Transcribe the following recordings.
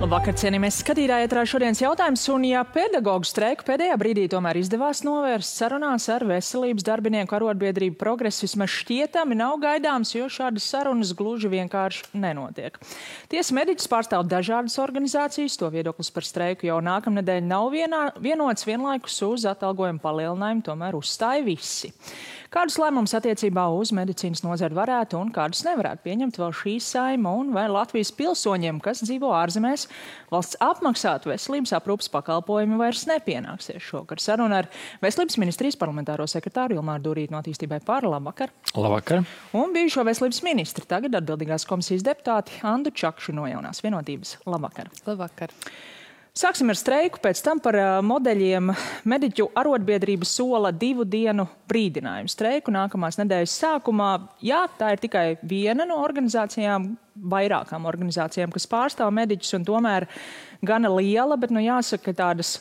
Labvakar, cienījamies skatītāji, ētrā šodienas jautājums, un ja pedagoģu streiku pēdējā brīdī tomēr izdevās novērst sarunās ar veselības darbinieku arotbiedrību Progress, vismaz šķietami nav gaidāms, jo šādas sarunas gluži vienkārši nenotiek. Tiesa mediķis pārstāv dažādas organizācijas, to viedoklis par streiku jau nākamnedēļ nav vienots, vienlaikus uz atalgojumu palielinājumu tomēr uzstāja visi. Kādus lēmumus attiecībā uz medicīnas nozari varētu un kādus nevarētu pieņemt vēl šī Saeima, un vai Latvijas pilsoņiem, kas dzīvo ārzemēs, valsts apmaksātu veselības aprūpes pakalpojumi vairs nepienāksies šogad? Saruna ar Veselības ministrijas parlamentāro sekretāru Ilmāru Dūrīti no Attīstībai par. Labvakar. Labvakar. Un bijušo veselības ministri, tagad atbildīgās komisijas deputāti Andu Čakšu no Jaunās vienotības. Labvakar. Labvakar. Sāksim ar streiku, pēc tam par modeļiem. Mediķu arotbiedrība sola 2 dienu brīdinājumu streiku nākamās nedēļas sākumā. Jā, tā ir tikai viena no organizācijām, vairākām organizācijām, kas pārstāv mediķus, un tomēr gana liela, bet jāsaka, ka tādas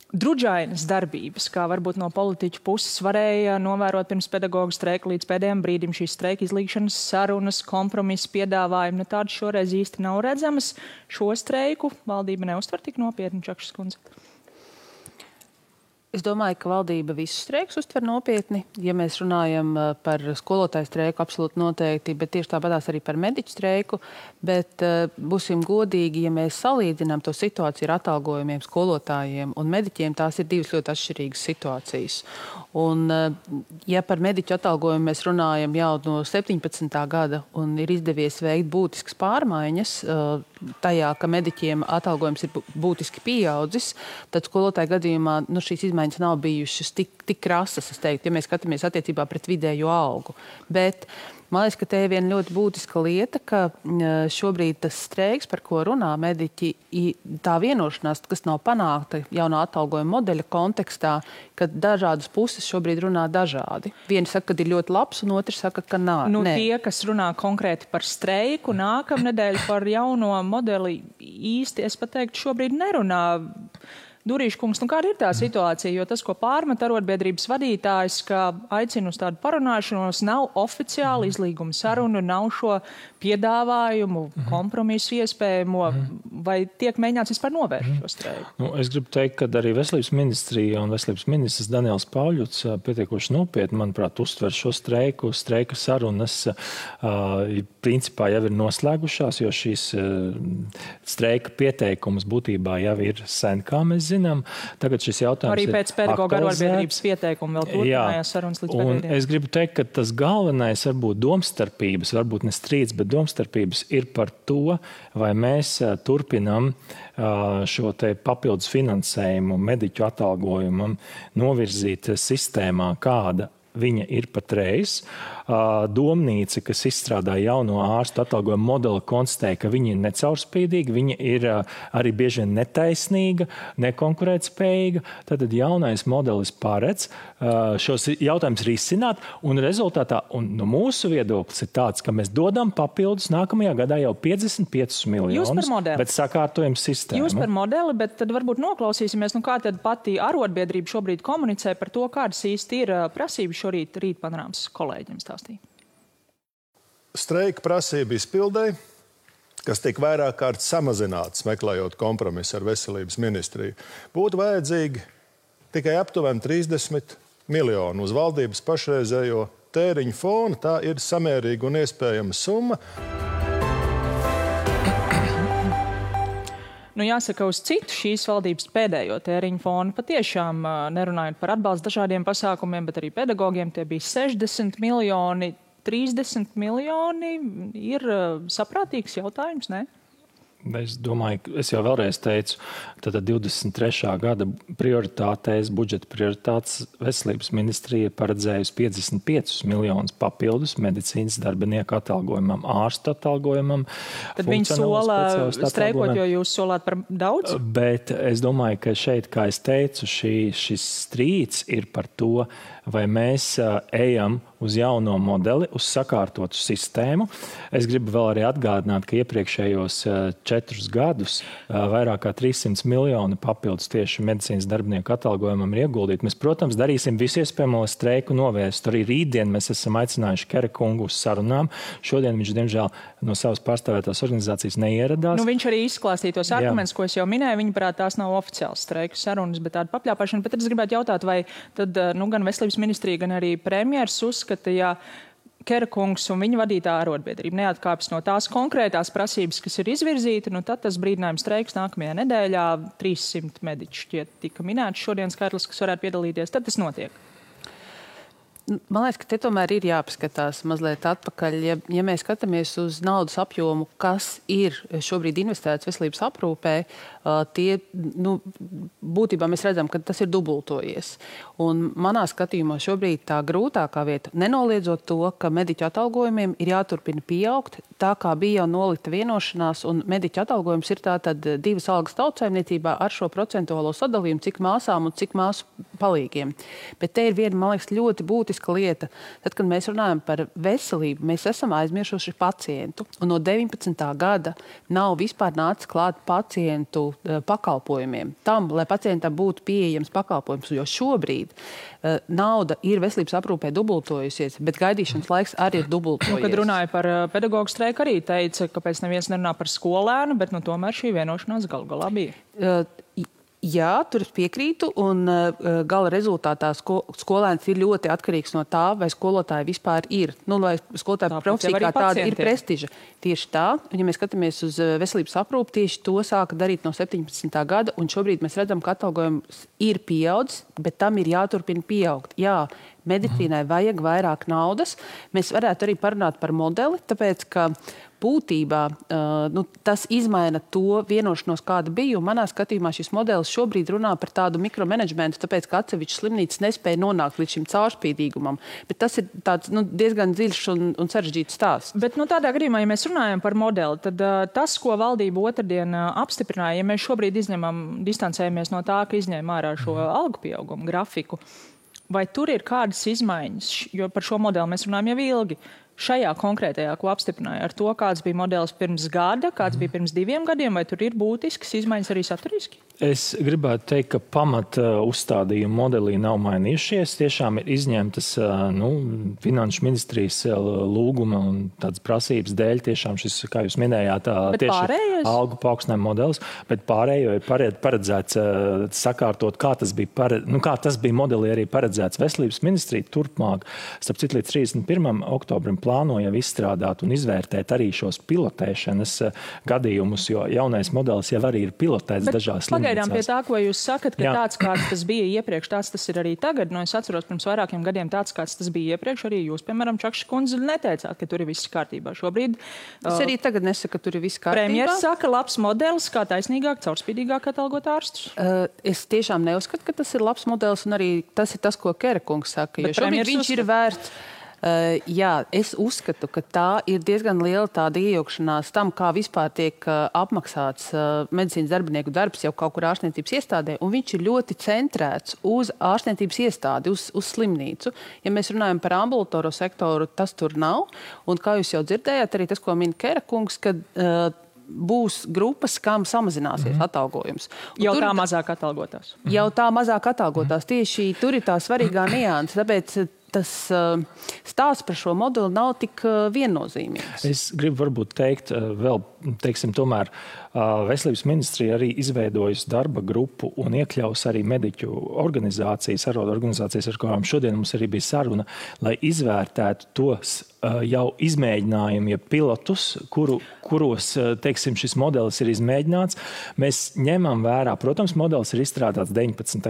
drudžainas darbības, kā varbūt no politiķu puses varēja novērot pirms pedagoģu streika līdz pēdējiem brīdim šīs streika izlīgšanas sarunas, kompromisu piedāvājumi. Tādas šoreiz īsti nav redzamas. Šo streiku valdība neuztver tik nopietni, Čakšas kundze? Es domāju, ka valdība visus streikus uztver nopietni. Ja mēs runājam par skolotāju streiku, absolūti noteikti, bet tieši tāpatās arī par mediķu streiku. Bet būsim godīgi, ja mēs salīdzinām to situāciju ar atalgojumiem skolotājiem un mediķiem, tās ir divas ļoti atšķirīgas situācijas. Un ja par mediķu atalgojumu mēs runājam jau no 17. gada un ir izdevies veikt būtiskas pārmaiņas tajā, ka mediķiem atalgojums ir būtiski pieaudzis, tad skolotāju gadījumā šīs izmaiņas nav bijušas tik krasas, es teiktu, ja mēs skatāmies attiecībā pret vidējo algu. Bet man liekas, ka te ir viena ļoti būtiska lieta, ka šobrīd tas streiks, par ko runā mediķi, tā vienošanās, kas nav panākta jaunā atalgojuma modeļa kontekstā, ka dažādas puses šobrīd runā dažādi. Vieni saka, ka ir ļoti labs, un otrs saka, ka nav. Tie, kas runā konkrēti par streiku, nākamnedēļ par jauno modeli īsti, es pat teiktu, šobrīd nerunā. Durīša kungs, kāda ir tā situācija? Jo tas, ko pārmet arotbiedrības vadītājs, ka aicina uz tādu parunāšanos, nav oficiāli izlīguma sarunu, nav šo piedāvājumu, kompromisu iespējamo, vai tiek mēģināts vispār novērst šo streiku? Es gribu teikt, ka arī Veselības ministrija un Veselības ministrs Daniels Pauļuts pietiekoši nopietni, manuprāt, uztver šo streiku. Streika sarunas principā jau ir noslēgušās, jo šīs streika pieteikums būtībā jau ir sen, kā mēs zinām. Tagad šis jautājums arī pēc pedagoģu arotbiedrības pieteikuma vēl turpinājās sarunas līdz pēdējiem. Es gribu teikt, ka tas galvenais varbūt domstarpības, varbūt ne strīds, bet domstarpības ir par to, vai mēs turpinam šo te papildus finansējumu mediķu atalgojumam novirzīt sistēmā, kāda viņa ir patreiz. Domnīca, kas izstrādā jauno ārstu atalgojumu modeli, konstatēja, ka viņa ir necaurspīdīga, viņa ir arī bieži vien netaisnīga, nekonkurētspējīga. Tad jaunais modelis paredz šos jautājumus risināt, un rezultātā, un no mūsu viedoklis ir tāds, ka mēs dodam papildus nākamajā gadā jau 55 miljonus, bet sakārtojam sistēmu. Jūs par modeli, bet tad varbūt noklausīsimies, kā tad pati arotbiedrība šobrīd komunicē par to, kādas īsti ir prasības šorīt Rīt panorāmas kolēģiem stāstīja. Streika prasība izpildēji, kas tiek vairāk kārt samazināts, meklējot kompromisu ar Veselības ministriju, būtu vajadzīgi tikai aptuveni 30 miljoni uz valdības pašreizējo tēriņu fonu. Tā ir samērīga un iespējama summa. Jāsaka, uz citu šīs valdības pēdējo tēriņu fonu patiešām nerunājot par atbalstu dažādiem pasākumiem, bet arī pedagogiem tie bija 60 miljoni. 30 miljoni ir saprātīgs jautājums, ne? Es domāju, es jau vēlreiz teicu, tad 23. gada prioritātēs, budžeta prioritātes Veselības ministrija paredzējusi 55 miljonus papildus medicīnas darbinieku atalgojumam, ārstu atalgojumam. Tad viņi sola streikot, jo jūs solāt par daudz? Bet es domāju, ka šeit, kā es teicu, šis strīds ir par to, vai mēs ejam uz jauno modeli, uz sakārtotu sistēmu. Es gribu vēl arī atgādināt, ka iepriekšējos 4 gadus vairāk kā 300 miljoni papildus tieši medicīnas darbinieku atalgojumam ir ieguldīti. Mēs, protams, darīsim visu iespējamo, lai streiku novērstu. Arī rītdien mēs esam aicinājuši Kera kungu uz sarunām. Šodien viņš, diemžēl, no savas pārstāvētās organizācijas neieradās. Viņš arī izklāstīja tos argumentus, ko es jau minēju. Viņaprāt, tās nav oficiāls streiku sarunas, bet tāda papļāpāšana. Bet es gribētu jautāt, vai tad gan Veselības ministrija, gan arī premjers uzskata, ja Kera kungs un viņa vadītā arotbiedrība neatkāpjas no tās konkrētās prasības, kas ir izvirzīta, tad tas brīdinājums streiks nākamajā nedēļā 300 mediķi šķiet tika minēts šodien skaitlis, kas varētu piedalīties. Tad tas notiek. Man liekas, ka te tomēr ir jāpaskatās mazliet atpakaļ. Ja mēs skatāmies uz naudas apjomu, kas ir šobrīd investēts veselības aprūpē, būtībā mēs redzam, ka tas ir dubultojies. Un manā skatījumā šobrīd tā grūtākā vieta, nenoliedzot to, ka mediķu atalgojumiem ir jāturpina pieaugt, tā kā bija jau nolita vienošanās, un mediķu atalgojums ir tātad 2 algas tautsaimniecībā ar šo procentuālo sadalījumu, cik māsām un cik māsu palīgiem. Bet te ir viena, man liekas, ļoti būtiska lieta. Tad, kad mēs runājam par veselību, mēs esam aizmirsuši pacientu. Un no 19. gada nav vispār nācis klāt pacientu pakalpojumiem. Tam, lai pacientam būtu pieejams pakalpojums, jo šobrīd nauda ir veselības aprūpē dubultojusies, bet gaidīšanas laiks arī ir dubultojies. Kad runāja par pedagoģu streiku, arī teica, ka pēc neviens nerunā par skolēnu, bet tomēr šī vienošanās galu galā bija. Jā, tur es piekrītu, un gala rezultātā skolēns ir ļoti atkarīgs no tā, vai skolotāji vispār ir. Vai skolotāja profesija kā tāda ir prestiža. Tieši tā, un ja mēs skatāmies uz veselības aprūpi, tieši to sāka darīt no 17. gada, un šobrīd mēs redzam, ka atalgojums ir pieaudzis, bet tam ir jāturpina pieaugt. Jā, medicīnai vajag vairāk naudas. Mēs varētu arī parunāt par modeli, tāpēc, ka būtībā tas izmaina to vienošanos, kāda bija. Un manā skatījumā šis modelis šobrīd runā par tādu mikromanagementu, tāpēc, ka atsevišķas slimnīcas nespēja nonākt līdz šim caurspīdīgumam. Bet tas ir tāds diezgan dziļš un sarežģīts stāsts. Bet tādā gadījumā, ja mēs runājam par modeli, tad tas, ko valdība otrdien apstiprināja, ja mēs šobrīd distancējamies no tā, ka izņēma ārā šo algu pieaugumu grafiku, vai tur ir kādas izmaiņas, jo par šo modeli mēs runājam jau ilgi, šajā konkrētajā, ko apstiprināja, ar to, kāds bija modelis pirms gada, kāds bija pirms 2 gadiem, vai tur ir būtiskas izmaiņas arī saturiski? Es gribētu teikt, ka pamata uzstādījumi modelī nav mainījušies. Tiešām ir izņemtas finanšu ministrijas lūguma un tādas prasības dēļ tiešām šis, kā jūs minējāt, tieši algu paaugstinājuma modelis, bet pārējo ir paredzēts sakārtot, kā tas bija modelī arī paredzēts. Veselības ministrija turpmāk, starp citu līdz 31. oktobrim plānoja izstrādāt un izvērtēt arī šos pilotēšanas gadījumus, jo jaunais modelis jau arī ir pilotēts dažās slimnīcās. Pagaidām pie tā, ko jūs sakat, ka tāds, kāds tas bija iepriekš, tāds tas ir arī tagad. Es atceros, pirms vairākiem gadiem tāds, kāds tas bija iepriekš, arī jūs, piemēram, Čakša kundze, neteicāt, ka tur ir viss kārtībā. Šobrīd es arī tagad nesaku, ka tur ir viss kārtībā. Premjeras saka, labs modelis, kā taisnīgāk, caurspīdīgāk atalgot ārstus. Es tiešām neuzskatu, ka tas ir labs modelis, un arī tas ir tas, ko Kera kungs saka, jo šobrīd viņš ir vērts. Jā, es uzskatu, ka tā ir diezgan liela tāda iejaukšanās tam, kā vispār tiek apmaksāts medicīnas darbinieku darbs jau kaut kur ārstniecības iestādē, un viņš ir ļoti centrēts uz ārstniecības iestādi, uz slimnīcu. Ja mēs runājam par ambulatoro sektoru, tas tur nav, un kā jūs jau dzirdējāt, arī tas, ko min Kera kungs, kad būs grupas, kam samazināsies atalgojums. Jau tā mazāk atalgotās. Jau tā mazāk atalgotās. Tieši tur ir tā svarīgā nianse, tāpēc tas stāsts par šo modeli nav tik viennozīmīgs. Es gribu varbūt teikt vēl, tomēr Veselības ministrija arī izveidojusi darba grupu un iekļaus arī mediķu organizācijas, arotorganizācijas, ar kurām šodien mums arī bija saruna, lai izvērtētu tos jau izmēģinājumi, ja pilotus, kuros, šis modelis ir izmēģināts. Mēs ņemam vērā, protams, modelis ir izstrādāts 18,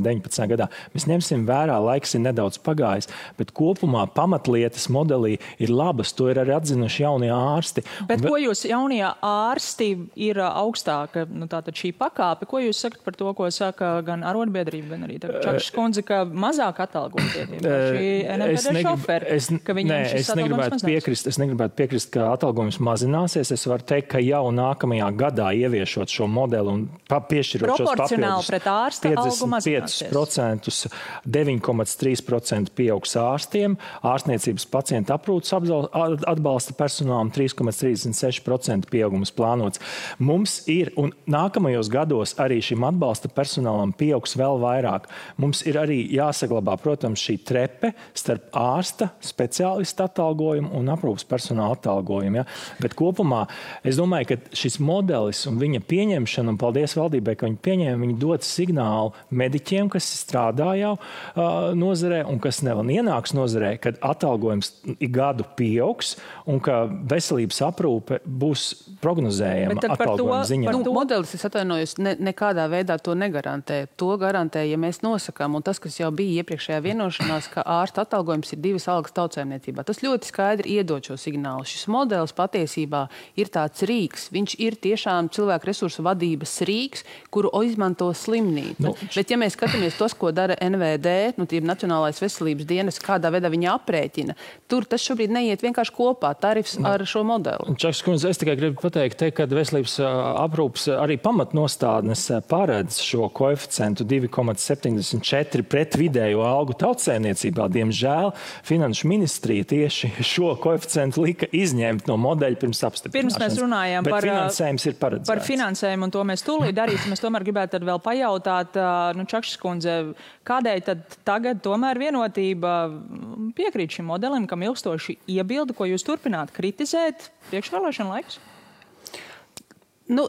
19 gadā. Mēs ņemsim vērā, laiks ir nedaudz pagājis, bet kopumā pamatlietas modelī ir labas, to ir arī atzinuši jaunie ārsti. Bet ko jūs jaunie ārsti ir augstāka, tātad šī pakāpe, ko jūs sakat par to, ko saka gan arotbiedrība, gan arī Čakša kundze, ka mazāk atalgotie šī NMPD šoferi, ka viņiem šis atalgojums mazinās? Es negribētu piekrist, ka atalgojums mazināsies. Es varu teikt, ka jau nākamajā gadā ieviešot šo modeli un piešķirot šos papildus 55%, 9,3% pieaugs ārstiem, ārstniecības pacientu aprūpes atbalsta personālam 3,36% pieaugums plānots. Mums ir, un nākamajos gados arī šim atbalsta personālam pieaugs vēl vairāk. Mums ir arī jāsaglabā, protams, šī trepe starp ārsta, speciālista atalgojumu un aprūpes personāla atalgojumu. Ja? Bet kopumā es domāju, ka šis modelis un viņa pieņemšana, un paldies valdībai, ka viņi pieņēma, viņi dod signālu mediķiem, kas strādā jau nozarē un kas vēl ienāks nozarē, kad atalgojums gadu pieaugs un ka veselības aprūpe būs prognozējama atalgojuma ziņā. Modelis, es atvainojos, nekādā veidā to negarantē. To garantē, ja mēs nosakām, un tas, kas jau bija iepriekšējā vienošanās, ka ārsta atalgojums ir 2 algas tautsaimniecībā. Tas ļoti skaidri iedod šo signālu. Šis modelis patiesībā ir tāds rīks. Viņš ir tiešām cilvēku resursu vadības rīks, kuru izmanto slimnīca. Bet ja mēs skatāmies tos, ko dara NVD, Nacionālais veselības dienas, kādā veidā viņi aprēķina, tur tas šobrīd neiet vienkārši kopā, tarifs ar šo modeli. Čakas kundze, es tikai gribu pateikt, ka veselības aprūpes arī pamatnostādnes paredz šo koeficientu 2,74 pret vidējo algu tautsaimniecībā. Diemžēl Finanšu ministrija tieši šo koeficientu lika izņemt no modeļa pirms apstiprināšanas. Pirms mēs runājām finansējums ir paredzēts. Par finansējumu, un to mēs tūlīt darīsim. Es tomēr gribētu tad vēl pajautāt, Čakšas kundze, kādēļ tad tagad tomēr Vienotība piekrīt šim modelim, kam ilgstoši iebilda, ko jūs turpināt kritizēt priekšvēlēšana laiks?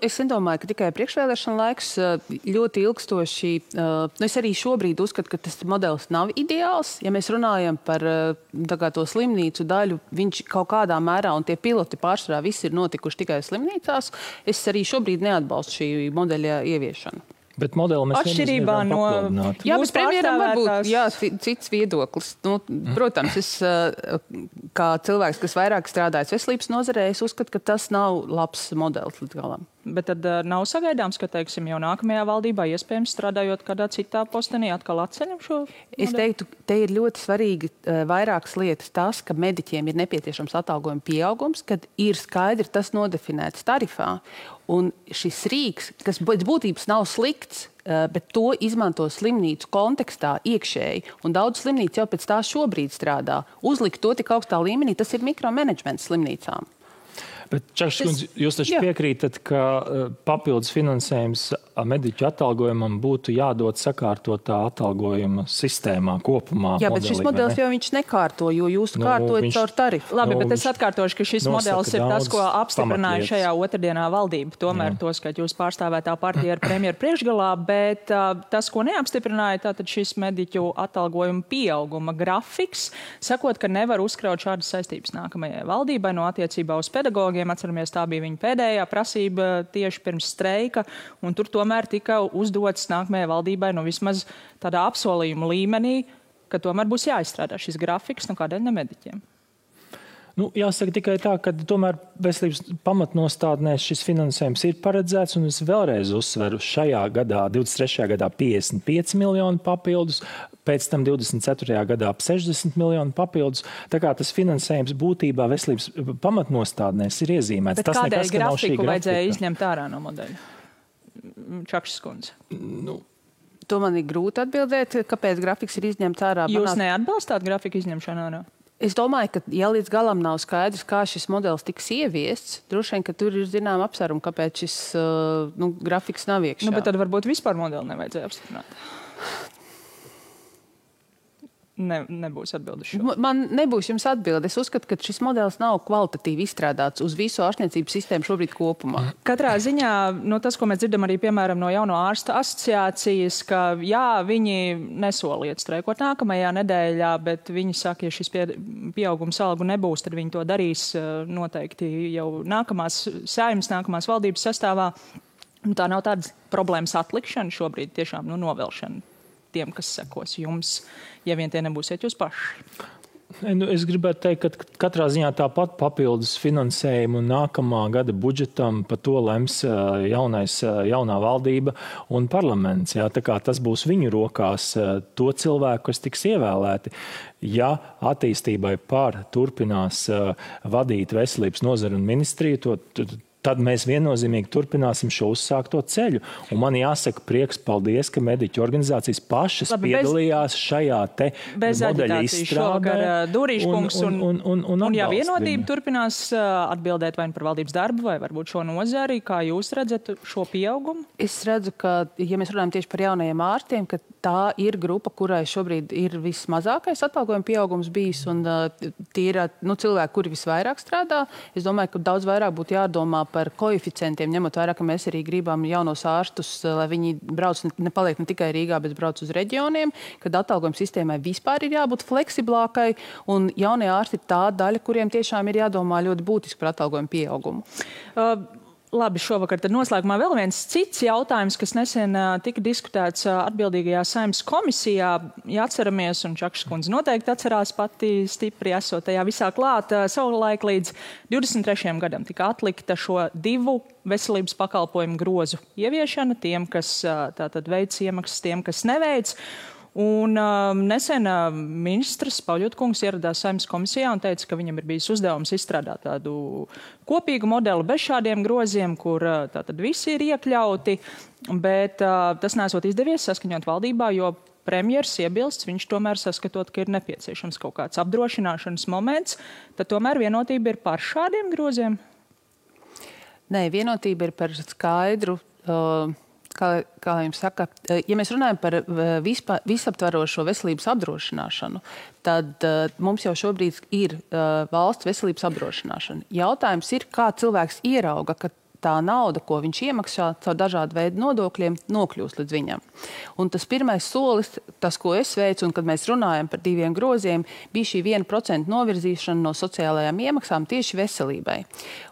Es nedomāju, ka tikai priekšvēlēšana laiks ļoti ilgstoši. Es arī šobrīd uzskatu, ka tas modelis nav ideāls. Ja mēs runājam par to slimnīcu daļu, viņš kaut kādā mērā, un tie piloti pārsvarā visi ir notikuši tikai slimnīcās, es arī šobrīd neatbalstu šī modeļa ieviešanu. Bet modeli mēs atšķirībā no... Jā, bet premjeram varbūt cits viedoklis. Protams, es kā cilvēks, kas vairāk strādājas veselības nozarē, es uzskatu, ka tas nav labs modelis līdz galam. Bet tad nav sagaidāms, ka, teiksim, jau nākamajā valdībā, iespējams, strādājot kādā citā postenī, atkal atceļam šo modeli? Es teiktu, te ir ļoti svarīgi vairākas lietas. Tas, ka mediķiem ir nepieciešams atalgojuma pieaugums, kad ir skaidri tas nodefinēts tarifā. Un šis rīks, kas pēc būtības nav slikts, bet to izmanto slimnīcu kontekstā iekšēji, un daudz slimnīcu jau pēc tā šobrīd strādā. Uzlikt to tik augstā līmenī, tas ir mikromanagements slimnīcām. Bet, Čakšas kundze, jūs taču piekrītat, ka papildus finansējums mediķu atalgojumam būtu jādod sakārtotā atalgojuma sistēmā kopumā. Jā, bet šis modelis jau viņš nekārto, jo jūs kārtojat caur tarifu. Labi, bet es atkārtošu, ka šis modelis ir tas, ko apstiprināja šajā otrdienā valdība. Tomēr tos, ka jūs pārstāvētā partija ar premjeru priekšgalā, bet tas, ko neapstiprināja, tātad šis mediķu atalgojuma pieauguma grafiks, sakot, ka nevar uzkraut šādas saistības nākamajai valdībai no attiecībā uz pedagogiem. Atceramies, tā bija viņa pēdējā prasība tieši pirms streika, un tur tomēr tika uzdots nākamajai valdībai vismaz tādā apsolījuma līmenī, ka tomēr būs jāizstrādā šis grafiks, kādēļ ne mediķiem. Jāsaka tikai tā, ka tomēr veselības pamatnostādnēs šis finansējums ir paredzēts, un es vēlreiz uzsveru šajā gadā, 23. gadā 55 miljoni papildus, pēc tam 24. gadā 60 miljoni papildus. Tā kā tas finansējums būtībā veselības pamatnostādnēs ir iezīmēts. Bet kādēļ grafiku vajadzēja izņemt ārā no modeļa? Čakšas kundze. To man ir grūti atbildēt, kāpēc grafiks ir izņemts ārā. Jūs neatbalstāt grafiku izņemšanu ārā? Es domāju, ka, ja līdz galam nav skaidrs, kā šis modelis tiks ieviests, droši vien, ka tur ir zinām apsvērumu, kāpēc šis grafiks nav iekšā. Bet tad varbūt vispār modeli nevajadzēja apstiprināt. Nebūs atbildes šo. Man nebūs jums atbilde. Es uzskatu, ka šis modelis nav kvalitatīvi izstrādāts uz visu ārstniecības sistēmu šobrīd kopumā. Katrā ziņā, tas, ko mēs dzirdam arī, piemēram, no jauno ārsta asociācijas, ka jā, viņi nesoliet streikot nākamajā nedēļā, bet viņi saka, ja šis pieaugums algu nebūs, tad viņi to darīs noteikti jau nākamās saeimas, nākamās valdības sastāvā. Tā nav tādas problēmas atlikšana šobrīd, tiešām novelšana tiem, kas sekos jums, ja vien tie nebūsiet jūs paši. Es gribētu teikt, ka katrā ziņā tāpat papildus finansējumu nākamā gada budžetam par to lems jaunā valdība un parlaments. Jā, tā kā tas būs viņu rokās, to cilvēku, kas tiks ievēlēti. Ja attīstībai turpinās vadīt veselības nozaru un ministriju, tad mēs viennozīmīgi turpināsim šo uzsākto ceļu. Un man jāsaka prieks, paldies, ka mediķu organizācijas pašas piedalījās šajā te modeļa izstrādē. Durīškungs un ja vienotība turpinās atbildēt vai par valdības darbu, vai varbūt šo nozari, kā jūs redzat šo pieaugumu? Es redzu, ka, ja mēs runājam tieši par jaunajiem ārstiem, ka tā ir grupa, kurai šobrīd ir vismazākais atalgojuma pieaugums bijis, un tie ir cilvēki, kuri visvairāk strādā. Es domāju, ka daudz vairāk būtu jādomā par koeficientiem, ņemot vērā, ka mēs arī gribam jaunos ārstus, lai viņi nepaliek ne tikai Rīgā, bet brauc uz reģioniem, kad atalgojuma sistēmai vispār ir jābūt fleksiblākai, un jaunie ārsti ir tā daļa, kuriem tiešām ir jādomā ļoti būtiski par atalgojuma pieaugumu. Labi, šovakar tad noslēgumā vēl viens cits jautājums, kas nesen tika diskutēts atbildīgajā Saeimas komisijā. Ja atceramies, un Čakšas kundze noteikti atcerās pati stipri esot tajā visā klāt, savulaik līdz 23. gadam tika atlikta šo 2 veselības pakalpojumu grozu ieviešana tiem, kas tātad veic iemaksas, tiem, kas neveic. Un nesen ministrs Pauļotkungs ieradās Saeimas komisijā un teica, ka viņam ir bijis uzdevums izstrādāt tādu kopīgu modeli bez šādiem groziem, kur tātad visi ir iekļauti, bet tas nesot izdevies saskaņot valdībā, jo premjers iebilsts, viņš tomēr saskatot, ka ir nepieciešams kaut kāds apdrošināšanas moments, tad tomēr vienotība ir par šādiem groziem? Nē, vienotība ir par skaidru... Kā jums saka, ja mēs runājam par visaptvarošo veselības apdrošināšanu, tad mums jau šobrīd ir valsts veselības apdrošināšana. Jautājums ir, kā cilvēks ierauga, ka tā nauda, ko viņš iemaksā caur dažādu veidu nodokļiem, nokļūst līdz viņam. Un tas pirmais solis, tas, ko es veicu, un kad mēs runājam par 2 groziem, bija šī 1% novirzīšana no sociālajām iemaksām tieši veselībai.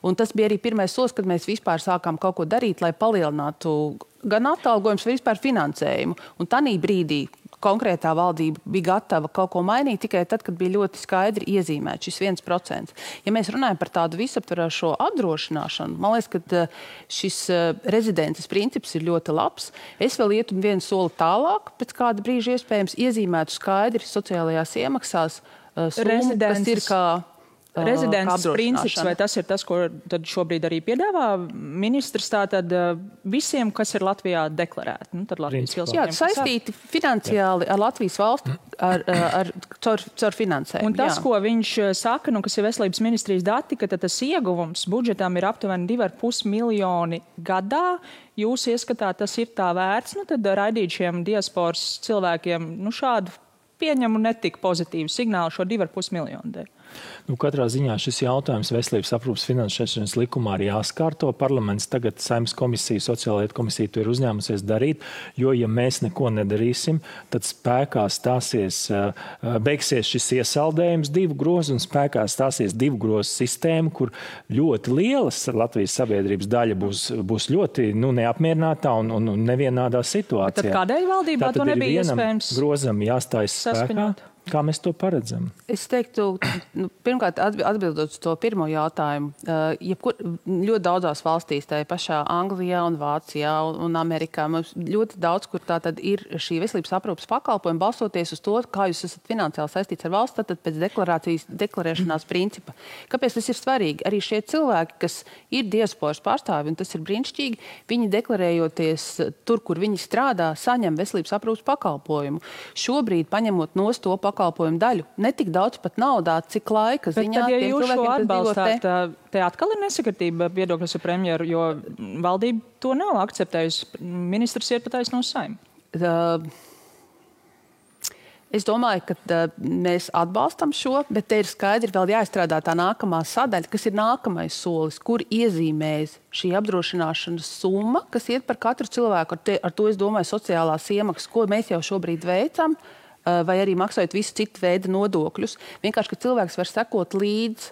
Un tas bija arī pirmais solis, kad mēs vispār sākām kaut ko darīt, lai palielinātu gan atalgojums, vai vispār finansējumu. Un tanī brīdī konkrētā valdība bija gatava kaut ko mainīt tikai tad, kad bija ļoti skaidri iezīmēts šis 1%. Ja mēs runājam par tādu visaptverošo apdrošināšanu, man liekas, ka šis rezidences princips ir ļoti labs. Es vēl ietu vienu soli tālāk, pēc kāda brīža iespējams iezīmētu skaidri sociālajās iemaksās summu, kas ir kā Rezidents princips, vai tas ir tas, ko tad šobrīd arī piedāvā ministrs, tātad visiem, kas ir Latvijā deklarēti? Nu, tad Latvijas pilsoņiem. Jā, saistīti finansiāli ar Latvijas valstu, caur finansējumu. Un tas, ko viņš saka, kas ir veselības ministrijas dati, ka tas ieguvums budžetām ir aptuveni 2,5 miljoni gadā. Jūs ieskatāt, tas ir tā vērts, tad raidīt šiem diasporas cilvēkiem šādu pieņemu netik pozitīvu signālu šo 2,5 miljonu dēļ. Katrā ziņā šis jautājums veselības aprūpes finansēšanas likumā ir jāskārto. Parlaments tagad Saeimas komisija, sociālietu komisija to ir uzņēmusies darīt, jo, ja mēs neko nedarīsim, tad spēkā beigsies šis iesaldējums 2 grozu un spēkā stāsies 2 grozu sistēma, kur ļoti lielas Latvijas sabiedrības daļa būs ļoti neapmierinātā un nevienādā situācijā. Tad kādēļ valdībā to nebija iespējams grozam jāstājas spēkā? Kā mēs to paredzam? Es teiktu, pirmkārt, atbildot uz to pirmo jautājumu, ļoti daudzās valstīs, tā pašā Anglijā un Vācijā un Amerikā, mums ļoti daudz, kur tā tad ir šī veselības aprūpes pakalpojuma, balstoties uz to, kā jūs esat finansiāli saistīts ar valsts, tad pēc deklarēšanās principa. Kāpēc tas ir svarīgi? Arī šie cilvēki, kas ir diasporas pārstāvi, un tas ir brīnišķīgi, viņi deklarējoties tur, kur viņi strādā, saņem veselības aprūpes pakalpojumu. Šobrīd, paņemot nost to pakalpojumu daļu, ne tik daudz pat naudā, cik laika ziņā. Bet tad, ja jūs šo atbalstāt, te atkal ir nesakritība viedokļos ar premjeru, jo valdība to nav akceptējusi. Ministrs ir pateicis no Saeimas. Es domāju, ka mēs atbalstam šo, bet te ir skaidri vēl jāizstrādā tā nākamā sadaļa, kas ir nākamais solis, kur iezīmēs šī apdrošināšanas summa, kas iet par katru cilvēku. Ar to es domāju sociālās iemaksas, ko mēs jau šobrīd veicam, vai arī maksājot visu citu veidu nodokļus. Vienkārši, ka cilvēks var sekot līdz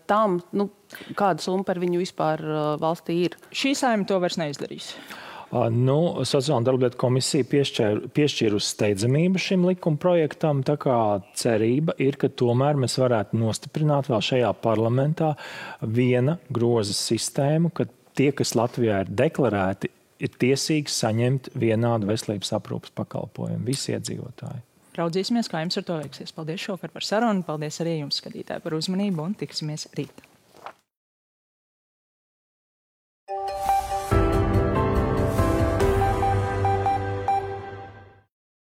tam, kāda summa par viņu vispār valstī ir. Šī Saeima to vairs neizdarīs. Sociāla un darba lietu komisija piešķīra uz steidzamību šim likuma projektam, tā kā cerība ir, ka tomēr mēs varētu nostiprināt vēl šajā parlamentā viena groza sistēmu, ka tie, kas Latvijā ir deklarēti, ir tiesīgi saņemt vienādu veselības aprūpes pakalpojumu, visi iedzīvotāji. Raudzīsimies, kā jums ar to veiksies. Paldies šovakar par sarunu, paldies arī jums, skatītāji, par uzmanību un tiksimies rīt.